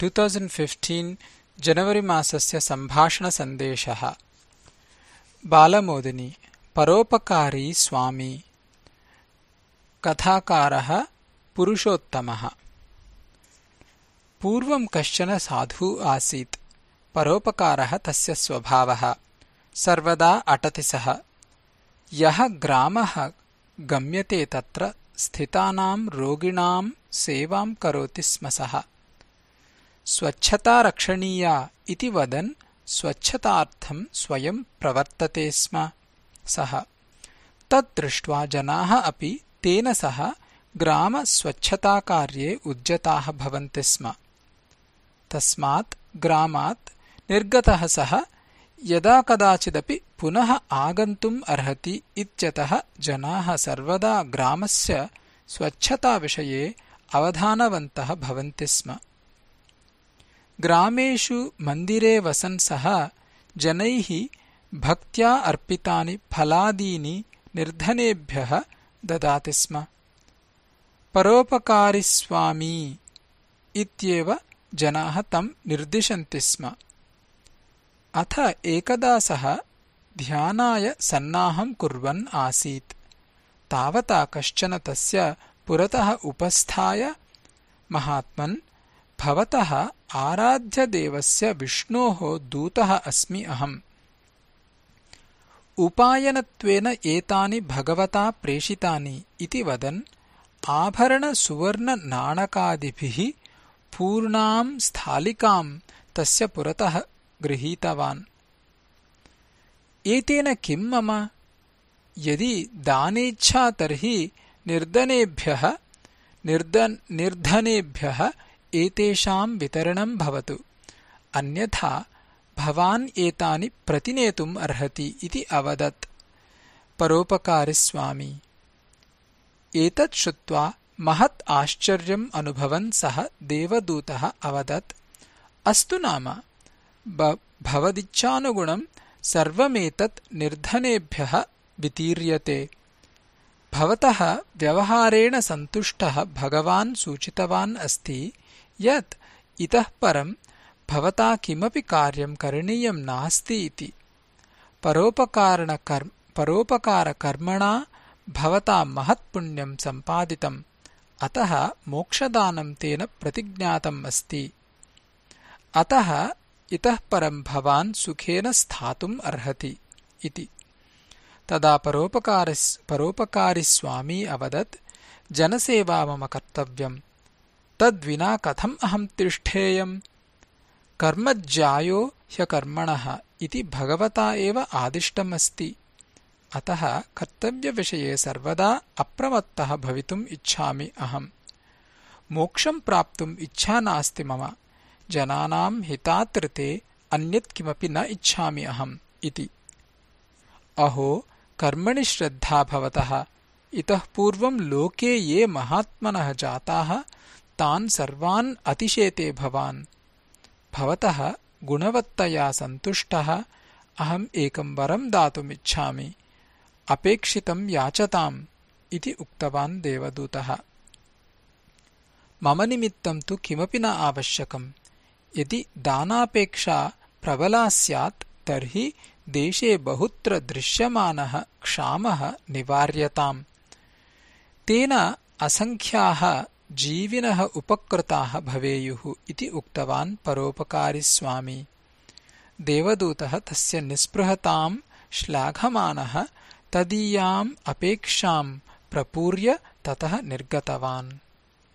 2015 January मासस्य सम्भाषणसन्देशः। बालमोदिनी परोपकारी स्वामी। कथाकारः पुरुषोत्तमः। पूर्वं कश्चन साधुः आसीत्। परोपकारः तस्य स्वभावः। सर्वदा अटति सः। यः ग्रामः गम्यते तत्र स्थितानां रोगिणां सेवां करोति स्म सः। स्वच्छता रक्षणीया इति वदन् स्वच्छतार्थं स्वयं प्रवर्तते स्म सः। तत् दृष्ट्वा जनाः अपि तेन सह ग्रामस्वच्छताकार्ये उद्यताः भवन्ति स्म। तस्मात् ग्रामात् निर्गतः सः यदा कदाचिदपि पुनः आगन्तुम् अर्हति इत्यतः जनाः सर्वदा ग्रामस्य स्वच्छताविषये अवधानवन्तः भवन्ति स्म। ग्रामेषु मन्दिरे वसन् सः जनैः भक्त्या अर्पितानि फलादीनि निर्धनेभ्यः ददाति स्म। परोपकारिस्वामी इत्येव जनाः तं निर्दिशन्ति स्म। अथ एकदा सः ध्यानाय सन्नाहं कुर्वन् आसीत्। तावता कश्चन तस्य पुरतः उपस्थाय, महात्मन्, भवतः आराध्यदेवस्य विष्णोः दूतः अस्मि अहम्। उपायनत्वेन एतानि भगवता प्रेषितानि इति वदन् आभरणसुवर्णनाणकादिभिः पूर्णां स्थालिकां तस्य पुरतः गृहीतवान्। एतेन किं मम? यदि दानेच्छा तर्हि निर्धनेभ्यः एतेषां वितरणं भवतु, अन्यथा भवान् एतानि प्रतिनेतुम् अर्हति इति अवदत् परोपकारिस्वामी। एतत् श्रुत्वा महत् आश्चर्यम् अनुभवन् सः देवदूतः अवदत्, अस्तु नाम, भवदिच्छानुगुणं सर्वमेतत् निर्धनेभ्यः वितीर्यते। भवतः व्यवहारेण सन्तुष्टः भगवान् सूचितवान् अस्ति यत् इतः परं भवता किमपि कार्यं करणीयं नास्ति इति। परोपकारकर्मणा भवता महत्पुण्यं सम्पादितम्, अतः मोक्षदानं तेन प्रतिज्ञातम् अस्ति। अतः इतः परं भवान् सुखेन स्थातुम् अर्हति इति। तदा परोपकारिस्वामी अवदत्, जनसेवा मम कर्तव्यम्, तद्विना कथम् अहं तिष्ठेयम्? कर्मज्यायो ह्यकर्मणः इति भगवता एव आदिष्टमस्ति। अतः कर्तव्यविषये सर्वदा अप्रमत्तः भवितुम् इच्छामि अहम्। मोक्षं प्राप्तुम् इच्छा नास्ति मम। जनानां हितार्थे अन्यत् किमपि न इच्छामि अहम् इति। अहो, कर्मणि श्रद्धा भवतः। इतः पूर्वं लोके ये महात्मनः जाताः तान् सर्वान् अतिशेते भवान्। भवतः गुणवत्तया सन्तुष्टः अहम् एकं वरं दातुमिच्छामि। अपेक्षितं याचताम् इति उक्तवान् देवदूतः। मम निमित्तं तु किमपि न आवश्यकम्। यदि दानापेक्षा प्रबला स्यात् तर्हि देशे बहुत्र दृश्यमानः क्षामः निवार्यताम्। तेन असङ्ख्याः जीविनः उपकृताः भवेयुः इति उक्तवान् परोपकारिस्वामी। देवदूतः तस्य निःस्पृहतां श्लाघमानः तदीयाम् अपेक्षां प्रपूर्य ततः निर्गतवान्।